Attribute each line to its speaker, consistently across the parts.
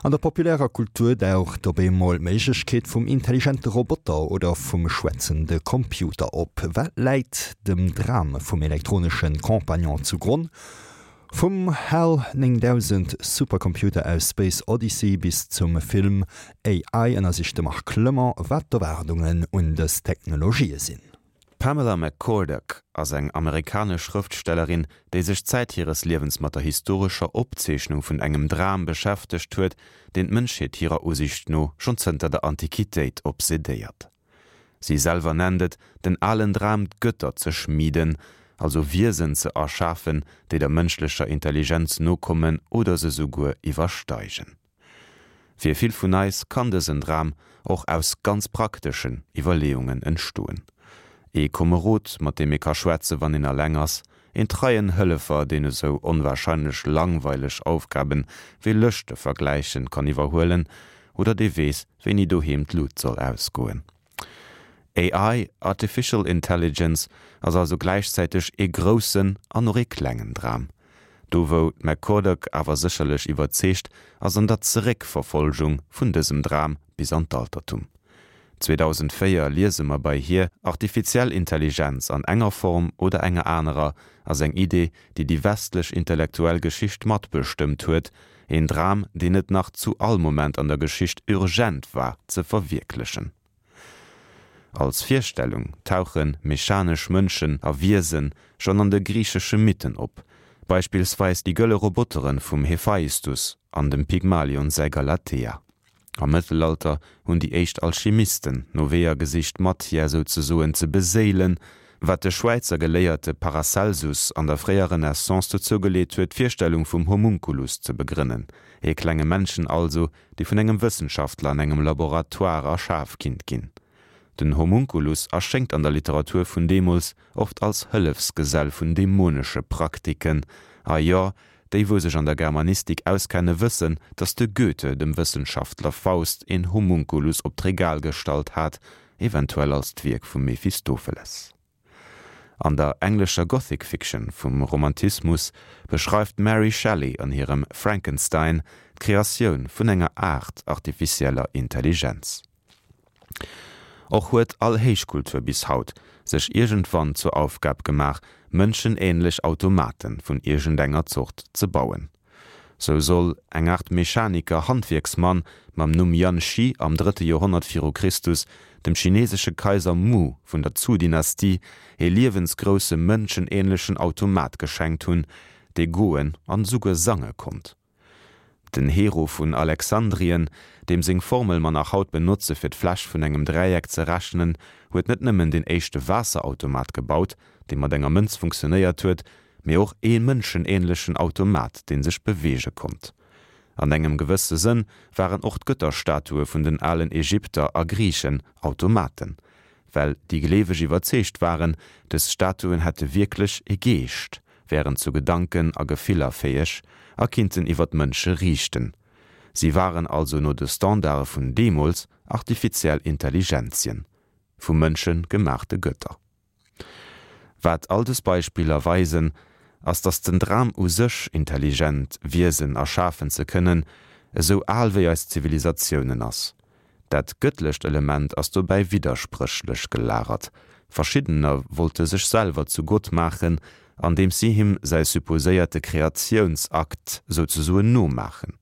Speaker 1: An der populärer Kultur daucht op eemol d'Méiglechkeet vum intelligente Roboter oder vum schwätzende Computer op. Wat läit dem Dram vum elektronesche Compagnon zu Gronn? Vum HAL 9000 Supercomputer aus Space Odyssey bis zum Film AI ënnersicht de Marc Clement, wat d'Erwaardungen un dës Technologië sinn.
Speaker 2: D'Pamela McCorduck ass eng amerikanesch Schrëftstellerin, déi sech Zäit hires Liewens mat der historescher Opzeechnung vun engem Dram beschäftegt huet, deen d'Mënschheet hirer Usiicht no schonn zënter der Antiquitéit obsedéiert. Si selwer nennt et den alen Dram d'Götter ze schmieden, also Wiesen ze erschafen, déi der mënschlecher Intelligenz nokommen oder se souguer iwwersteigen. Fir vill vun eis kann dësen Dram och aus ganz prakteschen Iwwerleeungen entstoen. Ee Komerod, mat deem ee ka schwätze wann een alleng ass, een treien Hëllefer, deen esou onwahrscheinlech langweileg Aufgaben wéi Lëschte vergläichen kann iwwerhuelen oder dee weess, wéini doheem d'Lut soll ausgoen. AI, Artificial Intelligence, ass also gläichzäiteg ee groussen an och ee klengen Dram. Do wou d'McCorduck awer sécherlech iwwerzeegt, ass an der Zeréckverfolgung vun dësem Dram bis an d'Altertum. 2004 liese mer bei hir, Artifiziell Intelligenz an enger Form oder enger anerer ass eng Idee, déi déi westlech intellektuell Geschicht matbestëmmt huet, Een Dram, deen et nach zu all Moment an der Geschicht urgent war ze verwierklechen. Als Virstellung tauche mechanesch Mënschen a Wiese schonn an de griichesche Mythen op, beispillsweis déi gëlle Robotere vum Hephaistus an dem Pygmalion säi Galatea. Am Mëttelalter hunn déi éischt Alchimisten no Weeër gesicht d'Matière souzesoen ze beséilen, wat de Schwäizer Geléierte Paracelsus an der fréier Renaissance dozou geleet huet d'Virstellung vum Homunculus ze begrënnen, ee klenge Männchen also, dee vun engem Wëssenschaftler an engem Laboratoire erschaf kinnt ginn. Den Homunculus erschéngt an der Literatur vun deemools oft als Hëllefsgesell vun dämonesche Praktiken, a jo, déi wou sech an der Germanistik auskenne wëssen, datt de Goethe dem Wëssenschaftler Faust een Homunculus op d'Regal gestallt hat, eventuell als d'Wierk vum Mephistopheles. An der englescher Gothic Fiction vum Romantismus beschreift d'Mary Shelley an hirem Frankenstein d'Kreatioun vun enger Aart artificieller Intelligenz. Och huet all Héichkultur bis haut sech iergendwann zur Aufgab gemaach, mënschenähnlech Automate vun iergendenger Zort ze bauen. Sou soll eng Art Mechaniker-Handwierksmann mam Numm Yan Shi am drëtte Joerhonnert viru Christus dem chinesesche Kaiser Mu vun der Zhou-Dynastie ee liewensgrousse mënschenähnlechen Automat geschenkt hunn, dee goen an esouguer sange konnt. Den Hero vun Alexandrien, deem seng Formel mer nach haut benotze fir d'Fläch vun engem Dräieck ze rechnen, huet net nëmmen den éischte Waasserautomat gebaut, dee mat enger Mënz funktionéiert huet, mee och ee mënschenähnlechen Automat, dee sech beweege konnt. An engem gewësse Sënn waren och d'Gëtterstatue vun den alen Ägypter a Griichen Automaten, well déi Gleeweg iwwerzeegt waren, dës Statuen hätte wierklech ee Geescht, wären zu Gedanken a Gefiller fäeg a kinnten iwwer d'Mënsche riichten. Si waren also no de Standarde vun deemools artifiziell Intelligenzien, vu Mënsche gemaachte Gëtter. Wat all dës Beispiller weisen, ass datt den Dram u sech, intelligent Wiesen erschafen ze kënnen, esou al wéi eis Zivilisatiounen ass. Dat gëttlecht Element ass dobäi widderspréchlech gelagert. Verschiddener wollte sech selwer zu Gott maachen, andeems si him säi supposéierte Kreatiounsakt souzesoen nomaachen.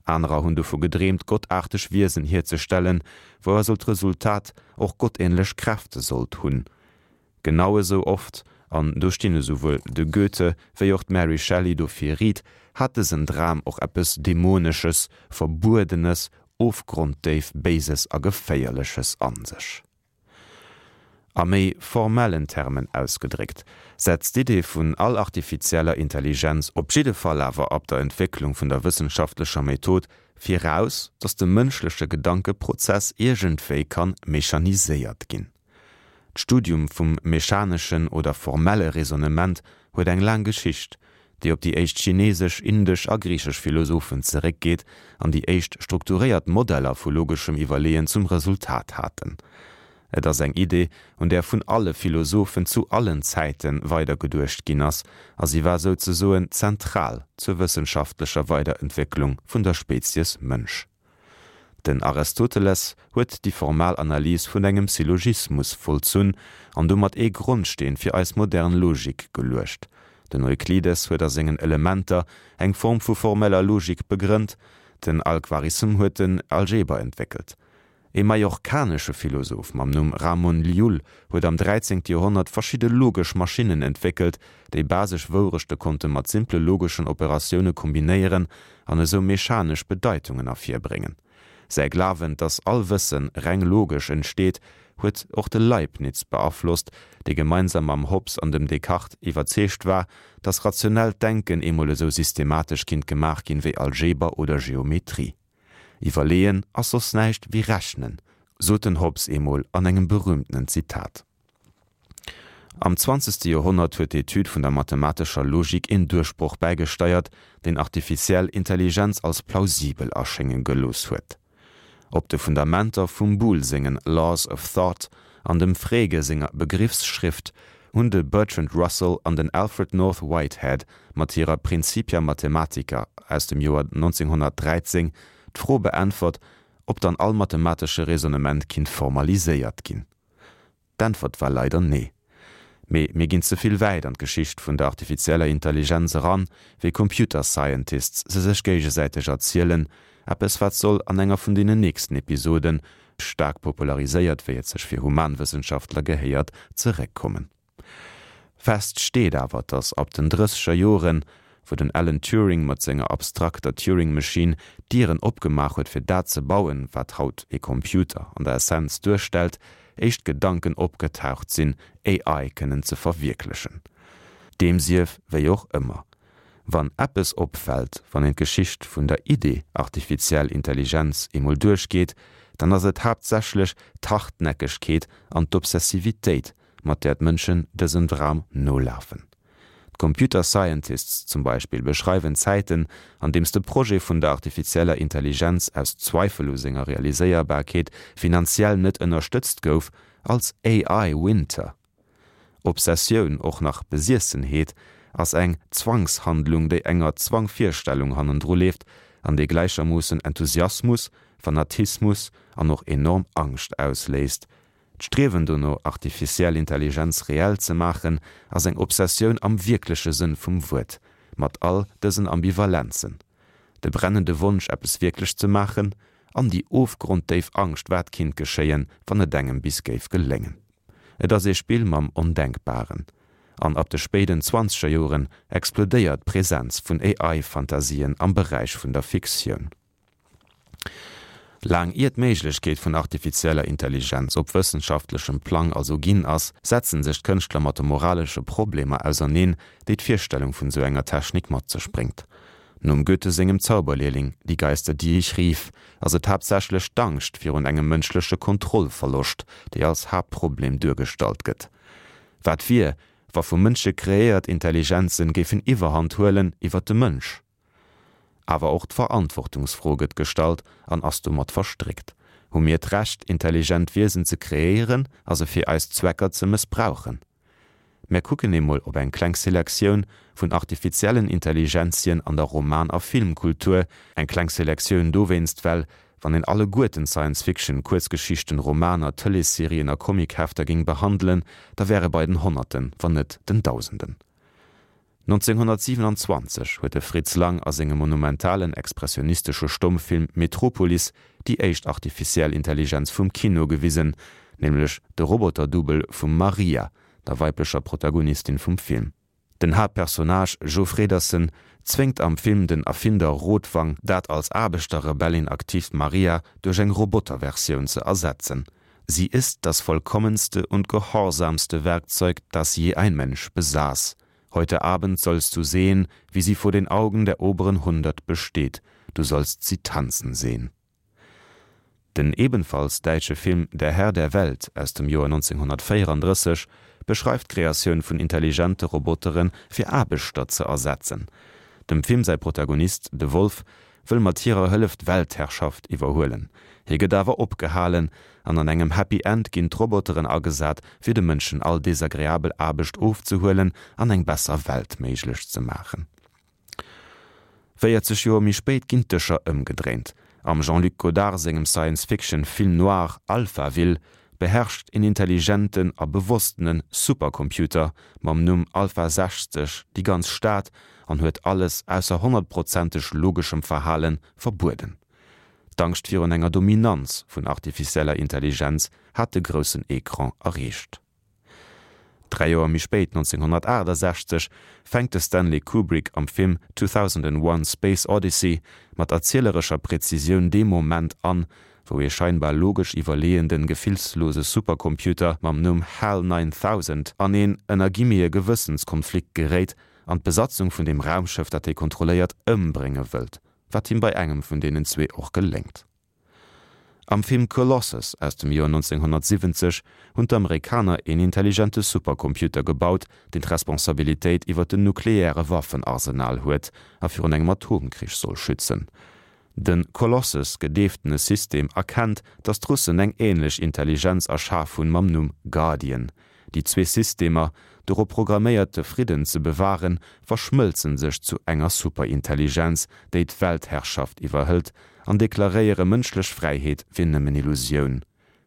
Speaker 2: Anerer hunn dovu gedreemt, gottaarteg Wiesen hierzestellen, wou also d'Resultat och gottähnlech Kräfte sollt hunn. Genau esou oft, an do stinn esouwuel de Goethe wéi och d'Mary Shelley dofir Ried, hat dësen Dram och eppes Dämonesches, Verbuedenes, ofgronddéif Béises a Geféierleches an sech. A méi formellen Termen ausgedréckt, setzt d'Idee vun all artifizieller Intelligenz, op jidde Fall awer ab der Entwécklung vun der wëssenschaftlecher Method, viraus, datt de mënschleche Gedankeprozess iergendwéi kann mechaniséiert ginn. D'Studium vum mechaneschen oder formelle Raisonnement huet eng laang Geschicht, déi op déi éischt chinesesch, indesch a griichesch Philosophen zeréckgeet an déi éischt strukturéiert Modeller vu logeschem Iwwerleeën zum Resultat haten. Et ass eng Idee, un där vun alle Philosophen zu allen Zäite weidergeduecht ginn ass, a si war souzesoen zentral zur wëssenschaftlecher Weiderentwécklung vun der Spezies Mënsch. Den Aristoteles huet déi formal Analys vun engem Syllogismus vollzunn an domat ee Grondsteen fir eis modern Logik geluecht. Den Euklides huet a sengen Elementer eng Form vu formeller Logik begrënnt, den Al-Khwarizm huet den Algeber entwéckelt. E mallorcanesche Philosoph mam Numm Ramon Llull huet am 13. Joerhonnert verschidde logesch Maschinnen entwéckelt, déi basesch Wourechte konnte mat simple logeschen Operatioune kombinéieren an esou mechanesch Bedeitungen ervirbréngen. Säi Glawen, dass all Wësse reng logesch entsteet, huet och de Leibniz beaflosst, dee gemeinsam mam Hobbes an dem Descartes iwwerzeegt war, dass rationellt Denken eemol esou systematesch kinnt gemaach ginn wéi Algeber oder Geometrie. Iwwerleeën ass soss näischt wéi rechnen, sot den Hobbes eemol an engem berühmtenen Zitat. Am zwanzegste Joerhonnert huet d'Etüd vun der mathematescher Logik een Duerchbroch bäigesteiert, deen artificiell Intelligenz als plausibel erschénge gelooss huet. Op de Fundamenter vum Boole sengen Laws of Thought an dem Frege senger Begriffsschrift hunn de Bertrand Russell an den Alfred North Whitehead mat hirer Principia Mathematica aus dem Joer 1913 d'Fro beäntwert, ob dann all mathematesche Raisonnement kinnt formaliséiert ginn. D'Äntwert war leider nee. Mee mir ginn ze vill wäit an d'Geschicht vun der artifizieller Intelligenz eran, wéi Computer Scientists se sech géigesäiteg erzielen, eppes wat soll an enger vun deenen nächsten Episoden, staark populariséiert wéi et sech fir Humanwëssenschaftler gehéiert, zeréckkommen. Fest steet awer, datt ab den drësseger Joren, wou den Alan Turing mat senger abstrakter Turing Machine d'Dieren opgemaach huet fir dat ze bauen, wat haut ee Computer an der Essenz duerstellt, éischt Gedanken opgetaucht sinn, AI kënnen ze verwierklechen. Deem sief wéi och ëmmer, wann eppes opfält, wann een d'Geschicht vun der Idee artifiziell Intelligenz emol duerchgeet, dann ass et haaptsächlech d'Hartnäckegkeet an d'Obsessivitéit, mat där d'Mënschen dësem Dram nolafen. D'Computer Scientists zum Beispill beschreiwen Zäiten, an deems de Projet vun der artifizieller Intelligenz aus Zweifel u senger Realiséierbarkeet finanziell net ënnerstëtzt gouf, als AI Winter. Obsessioun, och nach Besiessenheet, ass eng Zwangshandlung, déi enger Zwangvirstellung hannendru leeft an déi gläichermoossen Enthusiasmus, Fanatismus an och enorm Angscht ausléist. D'Striewen dono, artificiell Intelligenz reell ze maachen, ass eng Obsessioun am wierkleche Sënn vum Wuert, mat all dësen Ambivalenzen, de brennende Wonsch, eppes wierklech ze maachen, an déi ofgronddéif Angscht, wat kinnt geschéien, wann et engem bis géif geléngen. Et ass ee Spill mam Ondenkbaren. An ab de spéiden zwanzeger Joren explodéiert d'Presenz vun AI-Fantasien am Beräich vun der Fiktioun. Laang ier d'Méiglechkeet vun artifizieller Intelligenz op wëssenschaftlechem Plang also ginn ass, setzen sech d'Kënschtler mat de moralesche Problemer auserneen, déi d'Virstellung vun esou enger Technik mat sech bréngt. Nom Goethe sengem Zauberlehrling, Die Geister, die ich rief, ass et haaptsächlech d'Angscht virun engem mënschleche Kontrollverloscht, déi als Haaptproblem duergestallt gëtt. Wat wier, wa vu Mënsche kreéiert Intelligenzen géifen Iwwerhand huelen iwwer de Mënsch? Awer och d'Verantwortungsfro gëtt gestallt an ass domat verstréckt. Hu mir d'Recht, intelligent Wiesen ze kreéieren a se fir eis Zwecker ze mëssbrauchen? Mär kucken emol op eng kleng Selektioun vun artifiziellen Intelligenzien an der Roman a Filmkultur, eng kleng Selektioun dowéinst, well, wann een alleguerten Science-Fiction, Kuerzgeschichten, Romaner, Tëleesserien a Comichefter géing behandelen, da wäre bei den Honnerten, wann net den Dausenden. 1927 huet de Fritz Lang a sengem monumentalen expressionistesche Stommfilm Metropolis déi éischt artificiell Intelligenz vum Kino gewisen, nämlech de Roboter-Double vum Maria, der weiblecher Protagonistin vum Film. Den Haaptpersonnage Joe Fredersen zwéngt am Film den Erfinder Rotwang, dat als Aarbechterrebellin aktiivt Maria duerch eng Roboterversioun ze ersetzen. Sie ist das vollkommenste und gehorsamste Werkzeug, das je ein Mensch besaß. Heute Abend sollst du sehen, wie sie vor den Augen der oberen Hundert besteht. Du sollst sie tanzen sehen. Den ebenfalls däitsche Film Der Herr der Welt aus dem Joer 1934 beschreift d'Kreatioun vun intelligente Robotere fir Aarbechter ze ersetzen. Dem Film säi Protagonist, de Wolf, wëll mat hirer Hëllef d'Weltherrschaft iwwerhuelen. Hie gëtt awer opgehalen an an engem Happy End ginn d'Roboteren agesat, fir de Mënschen all desagreabel Aarbecht ofzehuelen an eng besser Welt méiglech ze maachen. 40 Joer méi spéit ginn d'Dëscher ëmgedréint. Am Jean-Luc Godard sengem Science-Fiction Film noir Alphaville beherrscht een intelligenten a bewosstene Supercomputer mam Numm Alpha 60 déi ganz Stad an huet alles ausser honnertprozenteg logeschem Verhale verbueden. D'Angscht virun enger Dominanz vun artificieller Intelligenz hat de groussen Ecran erreecht. Dräi Joer méi spéit, 1968, fänkt de Stanley Kubrick am Film 2001, Space Odyssey mat erzielerescher Präzisioun dee Moment an, wou ee scheinbar logesch iwwerleeënden, gefillslose Supercomputer mam Numm HAL 9000 an een, ënner Guillemete, Gewëssenskonflikt geréit an d'Besatzung vun deem Raumschëff, dat hie kontrolléiert, ëmbrénge wëllt, wat him bei engem vun deenen zwee och geléngt. Am Film Colossus aus dem Joer 1970 hunn d'Amerikaner een intelligente Supercomputer gebaut, deen d'Responsabilitéit iwwer den nukleäre Waffenarsenal huet a virun engem Atomkrich soll schützen. De Colossus gedeeftene System erkennt, datt d'Russen eng änlech Intelligenz erschaf hunn mam Numm Guardian. Déi zwee Systemer, dorop programméiert de Fridden ze bewahren, verschmëlzen sech zu enger Superintelligenz, déi d'Weltherrschaft iwwerhëlt an deklaréiere mënschlech Fräiheet wier nëmmen Illusioun.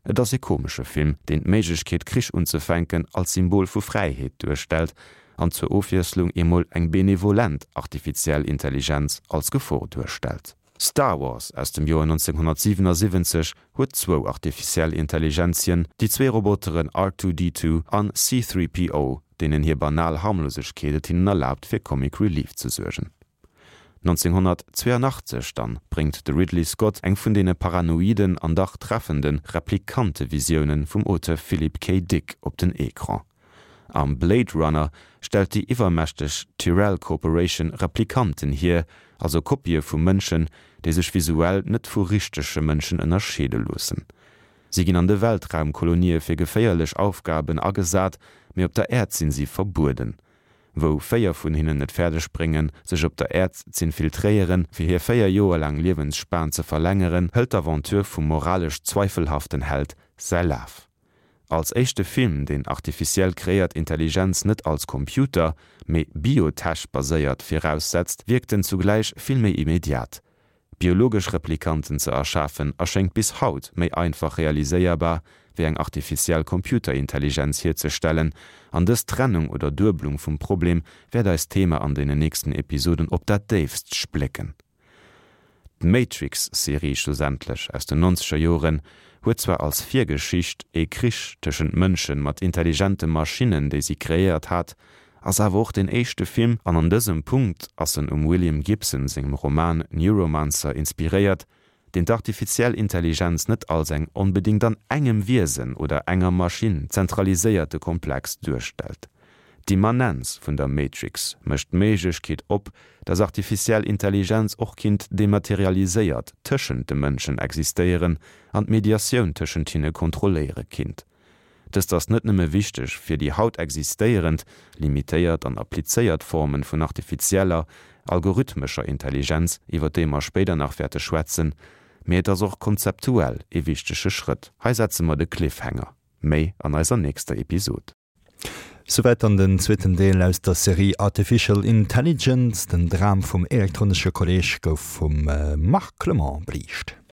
Speaker 2: Et ass ee komesche Film, deen d'Méiglechkeet Krich unzefänken als Symbol vu Fräiheet duerstellt an zur Ofwiesslung emol eng benevolent artifiziell Intelligenz als Gefor duerstellt. Star Wars aus dem Joer 1977 huet zwou artificiell Intelligenzien, déi zwee Roboteren R2-D2 an C-3PO, deenen hir banal Harmlosegkeet et hinnen erlaabt fir Comic Relief ze suergen. 1982 dann bréngt de Ridley Scott eng vun deene paranoiden an dach treffende Replikante-Visiounen vum Auteur Philip K. Dick op den Ecran. Am Blade Runner stellt déi iwwermächteg Tyrell Corporation Replikanten hier, also Kopië vu Mënschen, déi sech visuell net vu richtege Mënschen ënnerscheede loossen. Si ginn an de Weltraumkolonië fir geféierlech Aufgaben agesat, mee op der Äerd sinn si verbueden. Wou 4 vun hinnen et fäerdeg bréngen, sech op der Äerd z'infiltréieren, fir hir 4 Joer laang Liewensspan ze verlängeren, hëlt d'Aventure vum moralesch zweifelhaften Held säi Laf. Als éischte Film, deen artificiell kreéiert Intelligenz net als Computer, mee Biotech-baséiert viraussetzt, wierkt en zugläich vill méi immediat. Biologesch Replikanten ze erschafen erschéngt bis haut méi einfach realiséierbar, wéi eng artificiell Computerintelligenz hierzestellen, an dës Trennung oder Dueblung vum Problem wäert eist Thema an deenen nächsten Episoden op dat déifst splécken. D'Matrix-Serie schlussendlech aus den nonzeger Joren huet zwar als Virgeschicht ee Krich tëschent Mënsche mat intelligente Maschinnen, déi si kreéiert hat, ass awer och deen éischte Film, an an dësem Punkt ass en um William Gibson sengem Roman Neuromancer inspiréiert, deen d'artifiziell Intelligenz net als eng onbedéngt an engem Wiesen oder enger Maschinn zentraliséierte Komplex duerstellt. D'Immanenz vun der Matrix mécht d'Méiglechkeet op, dass artifiziell Intelligenz och kinnt dematerialiséiert tëschent de Mënschen existéieren an d'Mediatioun tëschent hinne kontrolléiere kinnt. Dëst ass net nëmme wichteg fir déi haut existéierend, limitéiert an applizéiert Formen vun artifizieller, algorithmescher Intelligenz, iwwer déi mer spéider nach wäerte schwätzen, mee et ass och konzeptuell ee wichtege Schrëtt. Hei setze mer de Cliffhanger. Méi an eiser nächster Episod.
Speaker 1: Souwäit dann den zweeten Deel aus der Serie Artificial Intelligence. Den Dram vum elektronesche Kolleg gouf vum Marc Clement beliicht.